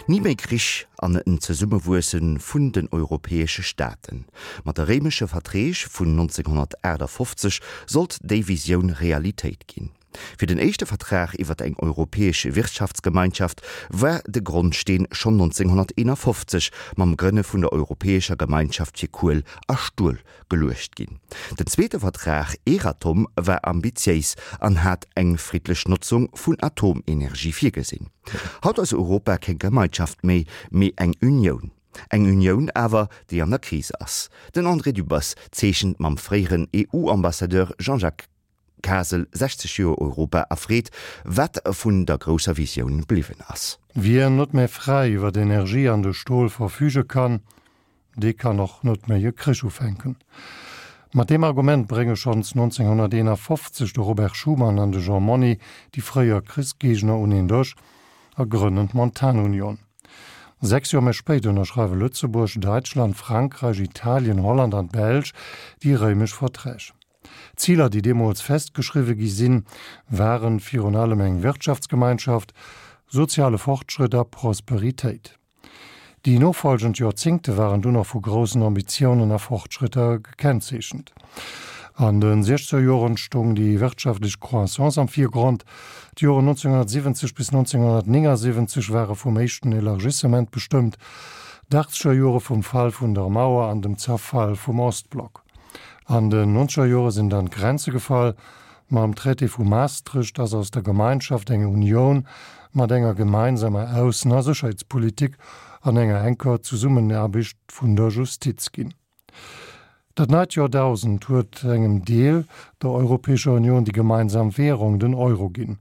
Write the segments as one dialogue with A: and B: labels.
A: Ni méi Krich an en Zesummewuesse vun den europäesche Staaten. Mat de Réimesche Verträg vun 1958 sollt déi Visioun Realitéit ginn. Fir den éischte Vertrag iwwer eng europäesch Wirtschaftsgemeinschaft war de Grondsteen schonn 1951 mam Grënne vun der Europäescher Gemeinschaft fir Kuel a Stuel geluecht ginn. Den zweete Vertrag, Euratom, war ambitiéis an hat eng friddlech Notzung vun Atomenergie virgesinn. Haut ass Europa keng Gemeinschaft méi, mee eng Unioun. Eng Unioun awer, déi an der Kris ass. Den André Dübbers zeechent mam fréieren EU-Ambassadeur Jean-Jacques Kasel 60 Joer Europa a freet, wat vun der grousser Visioun bliwwen ass.
B: Wien net méi fräi iwwer d'Energie an de Stol verfüge kann, dee kann och net méi e Krich ufänken. Mat deem Argument brénge schonns 1951 de Robert Schuman an de Jean Monnet déi fréier Krichsgéigner un een Dësch a grënnen d'Montanunion. 6 Joer méi spéit ënnerschreiwe Lëtzebuerg, Däitschland, Frankräich, Italien, Holland an d'Belsch déi Réimesch Verträg. D'Ziler, déi deemools festgeschriwwe gi sinn, waren virun allem eng Wirtschaftsgemeinschaft, soziale Fortschrëtt a Prosperitéit. Déi nofolgend Joerzéngte waren dunn och vu groussen Ambitiounen a Fortschrëtter gekennzeechent. An de siechzeger Joren stoung déi wirtschaftlech Croissance am Virgrond. D'Joren 1970 bis 1979 ware vum éischten Elargissement bestëmmt, d'achtzeger Jore vum Fall vun der Mauer an dem Zerfall vum Ostblock. An den nonzeger Jore sinn dann d'Grenze gefall. Mam Traité vu Maastricht ass aus der Gemeinschaft eng Unioun mat enger gemeinsamer Aussen a Sécherheetspolitik an enger enker Zesummenaarbecht vun der Justiz ginn. Dat neit Joerdausend huet engem Deel der Europäescher Union déi gemeinsam Währung, den Euro, ginn.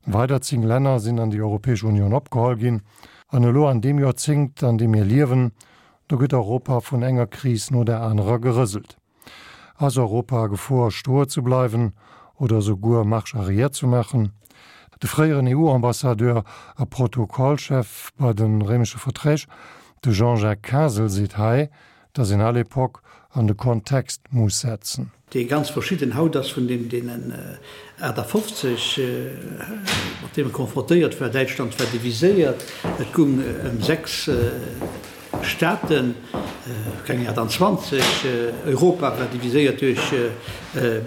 B: Weider 10 Länner sinn an déi Europäesch Union opgeholl ginn. An elo an deem Joerzéngt, an deem mir liewen, Do gëtt Europa vun enger Kris no der anerer gerëselt. Ass Europa a Gefor stoe ze bleiwen oder esouguer Marche arrière ze maachen? De fréieren EU-Ambassadeur a Protokollchef bei de Réimesche Verträg, de Jean-Jacques Kasel, seet hei, datt een all Epoque an de Kontext muss setzen.
C: dee ganz verschidden haut ass vun deem deenen 58, mat deem e konfrontéiert war. Däitschland war diviséiert, et gung ëm 6 Staaten, keng 28. Europa war diviséiert duerch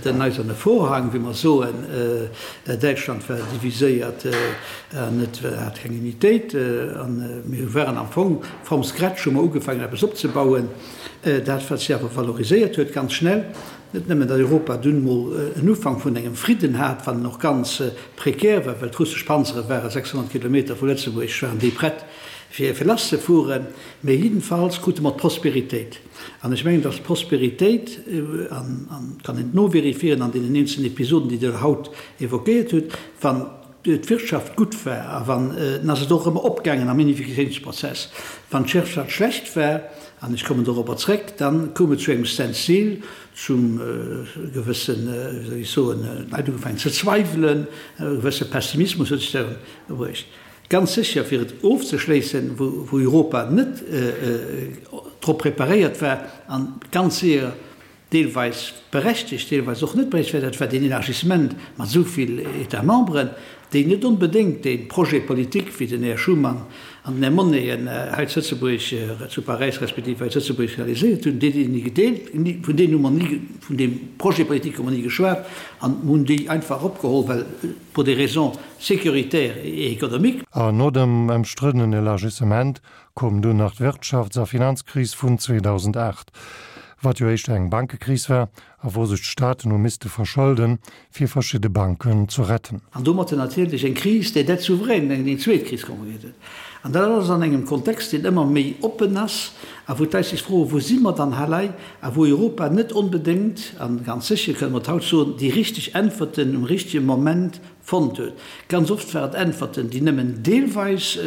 C: den Eiserne Vorhang, wéi mer soen. Däitschland war diviséiert an et hat keng Unitéit. A mir waren am Fong from scratch, hu mer ugefaangen eppes opzebauen. Dat, wat si awer valoriséiert huet ganz schnell, net nëmmen, datt Europa dunn mol en Ufank vun engem Fridden hat, wann en och ganz prekär war, well d'russesch Panzere ware 600 Kilometer vu Lëtzebuerg, waren déi prett fir lasszefueren, mä jiddenfalls krute mer d'Prosperitéit. An ech mengen, datt d'Prosperitéit, an et kann een et novérifieren an deenen eenzelnen Episoden, déi Der haut évoquéiert hutt, wann d'Wirtschaft gutt war a wann, dann ass et och ëmmer opgaangen am Unifikatiounsprozess. Wann d'Wirtschaft schlecht war, an ech kommen dorobber zréck, dann koum et zu engem Standstill, zum gewëssen, wéi soll ech soen, d'Leit hu ugefaangen ze zweiwelen, e gewësse Pessimismus huet sech da bruecht. Ganz sécher, fir et ofzeschléissen, wou Europa net drop preparéiert war an ganz séier deelweis berechtegt, deelweis och net berechtegt war, dat war deen Élargissement mat esou vill États membres, déi net onbedéngt dee Projet politique, wéi den Här Schuman an den Här Monnet en hei zu Lëtzebuerg, zu Paräis respektiv hei zu Lëtzebuerg realiséiert hunn, déi déi ni gedeelt, vun deenen hu mer ni, vun deem Projet politique hu mer ni geschwat an hunn déi einfach eropgeholl, well pour des raisons sécuritaires et économiques.
B: An no dem ëmstriddenen Élargissement koum dunn nach d'Wirtschafts a Finanzkris vun 2008, wat jo éischter eng Bankekris war a wou sech d'Staaten hu misste verschëlden, fir verschidde Banken ze retten.
C: An domatter natierlech eng Kris des dettes souveraines, eng zweet Kris konkurriert huet. An dat alles an engem Kontext, deen ëmmer méi oppen ass a wou d'Leit sech froen, Wou si mer dann hei? A wou Europa net onbedéngt, a ganz sécher kënne mer et haut soen, déi richteg Äntwerten um richtege Moment fonnt huet. Ganz oft waren et Äntwerten, déi nëmmen deelweis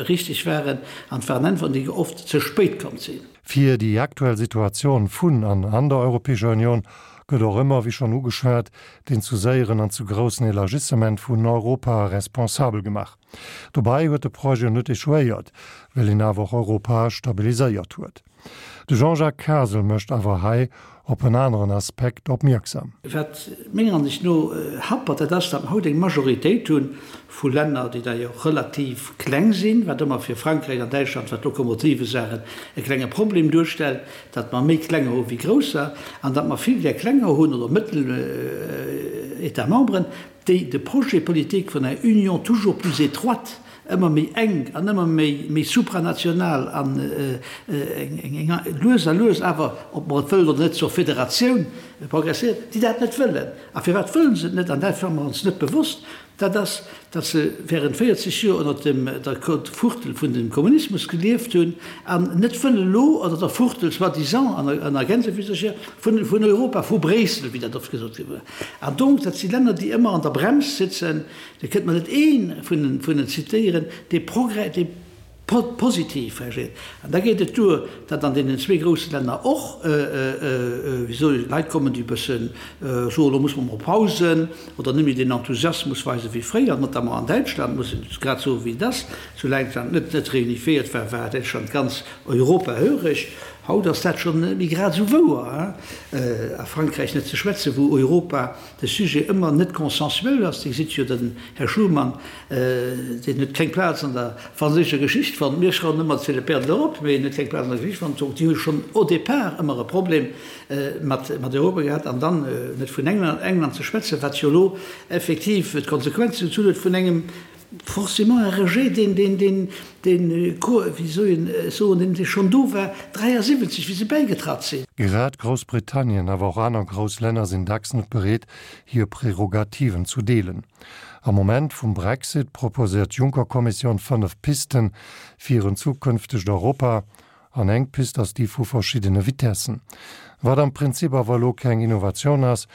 C: richteg waren, an et waren Äntwerten, déi oft ze spéit komm sinn.
B: Fir déi aktuell Situatioun vun an an der Europäescher Union gëtt och ëmmer, wéi schonn ugeschwat, deen zu séieren an zu groussen Elargissement vun Europa responsabel gemaach. Dobäi huet de Projet net échouéiert, well een awer och Europa stabiliséiert huet. De Jean-Jacques Kasel mécht awer hei op en aneren Aspekt opmierksam.
C: Wat menger Ansicht no happert, dat ass, datt mer haut eng Majoritéit hu vu Länner, déi d'ailleurs relativ kleng sinn, wat ëmmer fir Frankräich an Däitschland, wat d'Lokomotive sagen, e klenge Problem duerstellt, datt mer méi klenger hu wéi grousser an datt mer vill där klenger hunn oder mëttel États membres, déi de Projet politique vun enger Union toujours plus étroite, ëmmer méi enk an ëmmer méi supranational an eng lues a lues awer, ob mer et wëllen oder net, zur Federatioun progresséiert, déi dat net wëllen. A firwat wëllen se et net? An dat war mer ons net bewosst, dat ass, datt se während 40 Joer ënnert dem der Fuchtel vun dem Kommunismus gelieft hunn an net wëllen elo ënnert der Fuchtel, soi-disant, an a Gänsefüsercher, vun vun Europa, vu Bréissel, wéi dat oft gesot gi war. An donc, dat si Länner, déi ëmmer an der Brems sitzen. Dir kënnt mer net ee vun den zitéieren, dee Progrès, dee positiv reagiert. An da geet et duer, datt an deenen zwee grousse Länner och, wéi soll ech, Leit kommen, déi e bësse soen, elo musse mer mol pausen oder net méi deen Enthusiasmus weisen wéi fréier, notamment an Däitschland, muss een grad soen, wéi et ass. Soulaang d'Land net net reunifiéiert war, war Däitschland ganz europahöreg. Haut ass dat schonn net méi grad esou wouer. A Frankräich net ze schwätzen, wou Europa de Sujet ëmmer net consensuel ass. Dir gesitt jo, den Här Schuman, deen huet keng Plaz an der franséischer Geschicht fonnt. Mir schreiwen ëmmer, c'est le père de l'Europe, mee en huet keng Plaz an der Geschicht fonnt. Donc déi hu schonn au départ ëmmer e Problem mat Europa gehat. An dann, net vun England ze schwätzen, wat jo elo effektiv d'Konsequenzen gezunn huet vun engem Forcément un rejet, deen, deen, deen, deen, wéi soll een soen, deen schonn do war 73, wéi se bäigetratt sinn.
B: Grad Groussbritannien, awer och aner grouss Länner sinn dacks net bereet, hir Prärogativen zu deelen. Am Moment vum Brexit proposéiert d'Juncker-Kommissioun 5 Pisten fir en zukünftegt Europa. An eng Pist ass déi vu verschiddene Vitessen. Wat am Prinzip awer elo keng Innovatioun ass,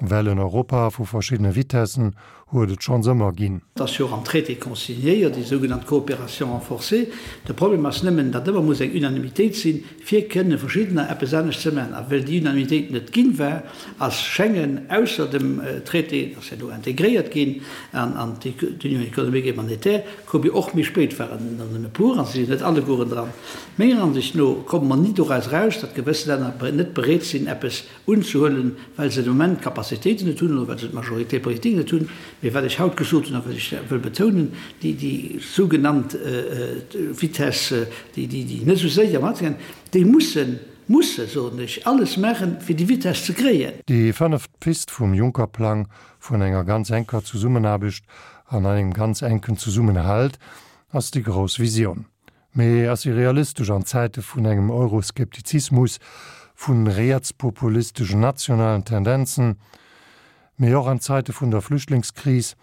B: Well en Europa vu verschiddene Vitessen huet et schonns ëmmer ginn.
C: Et ass jo och am Traité consignéiert, déi sougenannt Coopération renforcée. De Problem ass nëmmen, datt ëmmer muss eng Unanimitéit sinn, fir kënne verschiddener eppes anescht ze maachen. A well déi Unanimitéit net ginn war, ass Schengen ausser dem Traité, dat ass jo elo integréiert ginn an d'Union économique et monétaire, koum jo och méi spéit, waren der nëmme e puer a se sinn net allegueren dran. Menger Ansicht no komme mer ni doraus eraus, datt gewëss Länner net bereet sinn, eppes unzehuelen, well se de Moment d'Capacitéiten net hunn oder well se d'Majorité politique net hunn. Mee wat ech haut gesot hunn a wat ech wëll betounen, déi, déi sougenannt Vitesse, déi, déi, déi net esou séier matgehen, déi mussen, musse, soen ech, alles maachen, fir déi Vitesse ze kréien.
B: Déi fënneft Pist vum Juncker-Plang vun enger ganz enker Zesummenaarbecht an engem ganz enken Zesummenhalt ass déi grouss Visioun. Mee ass se realistesch an Zäite vun engem Euroskeptizismus, vu rietspopulisteschen nationalen Tendenzen, mee och an Zäite vun der Flüchtlingskris,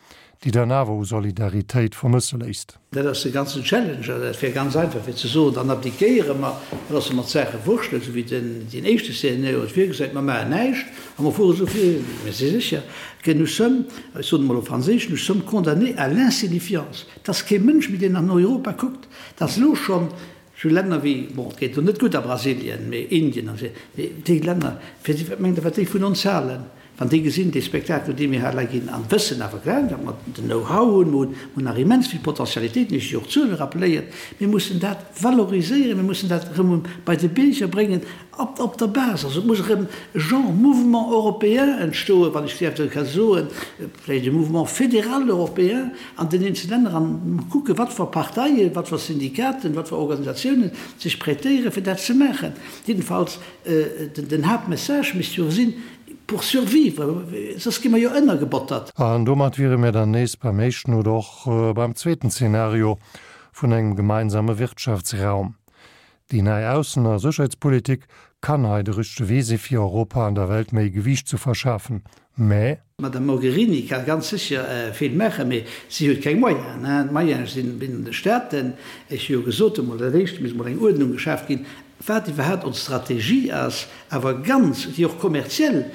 B: déi dann awer u Solidaritéit vermësse léisst?
C: Dat ass de ganzen Challenge. An dat wär ganz einfach fir ze soen, dann abdiquéiere mer, da loosse mer d'Saache wurschtelen, esou wéi den deen éischte Szenario et virgesäit, mer maachen näischt a mer fuere esou vir. Mir si sécher que nous sommes, ech soen emol op Franséisch, nous sommes condamnés à l'insignifiance. Et ass kee Mënsch méi, deen an Europa kuckt. Et ass elo schonn esou Länner wéi, bon, et geet elo net gutt a Brasilien, mee Indien an esou, mee déi Länner, fir déi, wat mengt Der, wat déi vun ons halen, wann déi gesinn, dee Spektakel, dee mir hei elei ginn, an wëssen awer gläich, datt mer den Know-how hunn, mer hunn nach immens vill Potentialitéiten, ech hu jo och d'Zuele rappelléiert, mir mussen dat valoriséieren, mir mussen dat erëm bei de Bierger bréngen, op, op der Base. Also et muss erëm e Genre Mouvement européen entstoen, wann ech däerf ka soen, vläicht e Mouvement fédéral européen an den eenzele Länner an kucken, wat fir Parteien, wat fir Syndikaten, wat fir Organisatiounen sech prêtéieren, fir dat ze maachen. Jiddefalls, den Haaptmessage misst jo sinn, pour survivre, soss gi mer jo ënnergebottert.
B: An domat wiere mir dann nees beim éischten oder och beim zweeten Zeenario vun engem gemeinsame Wirtschaftsraum. Déi nei Aussen a Sécherheetspolitik kann hei de richtege Wee si fir Europa an der Welt méi Gewiicht ze verschafen, mä.
C: D'Madame Mogherini ka ganz sécher vill maachen, mee si huet keng Moyenen. D'Moyene sinn an de Staaten. Ech hu jo gesot emol, dat éischt misst emol eng Uerdnung geschaaft ginn, wat iwwerhaapt ons Strategie ass, awer ganz, déi och kommerziell,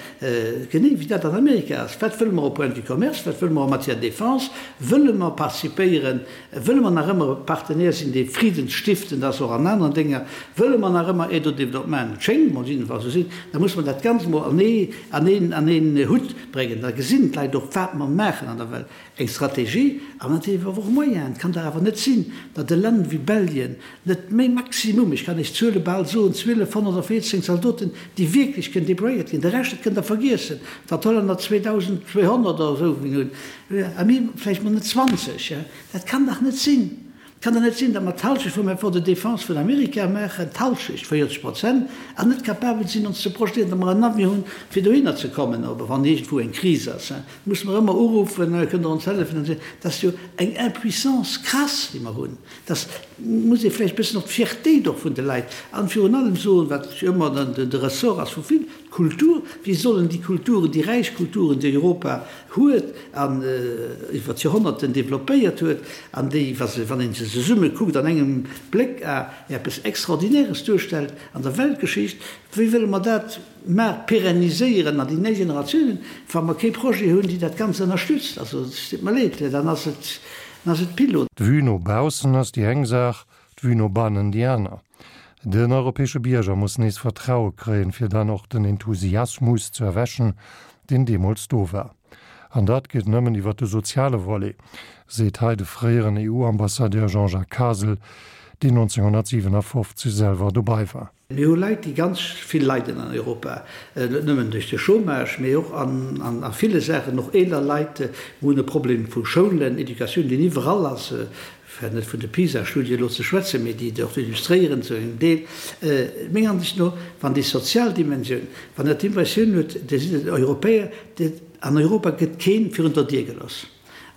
C: genee wéi dat an Amerika ass. Wat wëlle mer au point de vue commerce, wat wëlle mer en matière de défense? Wëlle mer participéieren, wëlle mer nach ëmmer e Partenaire sinn, dee friddensstiftend ass, och an aneren Dénger? Wëlle mer nach ëmmer Aide au développement? Et schéngt mol jiddefalls esou sinn. Da muss mer dat Ganzt mol an ee, an een, an een Hutt bréngen. Da gesinn d'Leit och, wat mer maachen an der Welt. Eng Strategie an natierlech awer och Moyenen. Et kann dach awer net sinn, datt e Land wéi Belgien net méi maximum, ech kann Iech Zuele. bal soen, 1214 Zaldoten, déi wierklech kënnen déployéiert ginn. De Rescht, dat kënnt Der vergiessen, datt d'Hollänner 2.200 oder esou hunn, a mir vläicht mol net 20. Dat kann dach net sinn! Et kann dach net sinn, datt mer d'Halschecht vum Effort de défense vun Amerika maachen, d'Halschecht, 40 Prozent, an net capabel sinn, ons ze projetéieren, datt mer en Avion hunn, fir dohinner ze kommen, oder wann iergendwou eng Kris ass, musse mer ëmmer uruffen, Kënnt Der ons hëllefen? Dat ass jo eng Impuissance crasse, déi mer hunn. Dat muss ee vläicht e bëssen och d'Fiertéit och vun de Leit an virun allem soen, wat jo ëmmer de Ressort ass vu vill, d'Kultur. Wéi sollen déi Kulturen, déi räich Kulturen, déi Europa huet an iwwer d'Joerhonnerten developpéiert huet an déi, wa se, wann ee se zesumme kuckt, an engem Bléck a eppes Extraordinäres duerstellt an der Weltgeschicht, wéi wëlle mer dat mar pérenniséieren an déi nei Generatiounen, wa mer kee Projet hunn, déi dat Ganzt ënnerstützt? Also, et deet mer leed, dann ass et, dann ass et Pilot.
B: D'Vue no baussen ass déi eng Saach, d'Vue no bannen déi aner. Den europäesche Bierger muss nees Vertraue kréien, fir dann och den Enthusiasmus ze erwächen, deen deemools do war. An dat geet nëmmen iwwer de soziale Volet, seet hei de fréieren EU-Ambassadeur Jean-Jacques Kasel, deen 1957 selwer dobei war.
C: Mir hu Leit, déi ganz vill leiden an Europa, net nëmmen duerch de Chômage, mee och an ville Saachen, och eeler Leit. Mir hunn e Problem vu Schoulen, Educatioun, deen iwwerall ass, fir net vun de PISA-Studie elo ze schwätzen, mee déi et och illustréieren zu engem Deel. Menger Ansicht no, wann déi sozial Dimensioun, wann Der d'Impressioun hutt, Dir sidd en Europäer, an Europa gëtt kee virun der Dier gelooss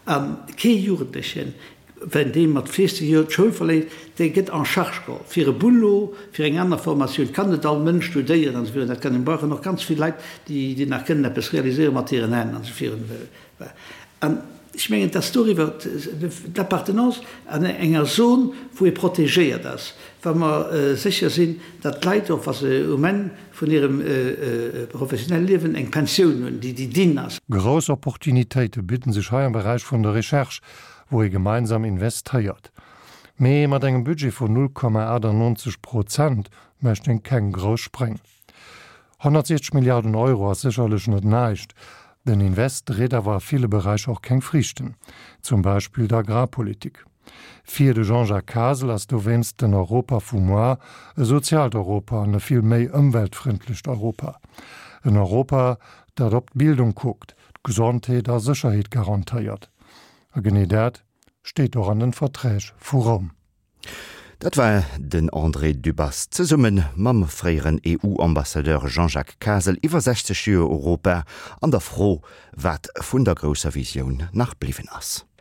C: a kee Jugendlechen, wenn dee mat 14 Joer d'Schoul verléisst, dee gëtt en charge geholl fir e Boulot, fir eng aner Formatioun. Et kann net all Mënsch studéieren an esou virun. Dat kann een. Mir brauchen och ganz vill Leit, déi nach kënnen eppes realiséieren mat hiren Hänn an esou virun. An ech mengen, dass doriwwer d'Appartenance an enger Zon, wou ee protegéiert ass, wa mer sécher sinn, datt d'Leit och, wa se um Enn vun hirem professionelle Liewen eng Pensioun hunn, déi déi dinn ass.
B: Grouss Opportunitéite bidden sech hei am Beräich vun der Recherche, wou ee gemeinsam investéiert. Mee mat engem Budget vun 0,98 Prozent mécht een keng grouss Spréng. 160 Milliarden Euro ass sécherlech net näischt. Den Invest dréit awer a ville Beräicher och keng Friichten, zum Beispill der Agrarpolitik. Fir de Jean-Jacques Kasel ass dowéinst den Europa vu moar e soziaalt Europa an e vill méi ëmweltfrëndlecht Europa. En Europa, dat op d'Bildung kuckt, d'Gesondheet a Sécherheet garantéiert. A genee dat steet och an den Verträg vu Roum.
A: Dat war den André Dübbers zesumme mam fréieren EU-Ambassadeur Jean-Jacques Kasel iwwer 60 Joer Europa an der Fro, wat vun der grousser Visioun nach bliwwen ass.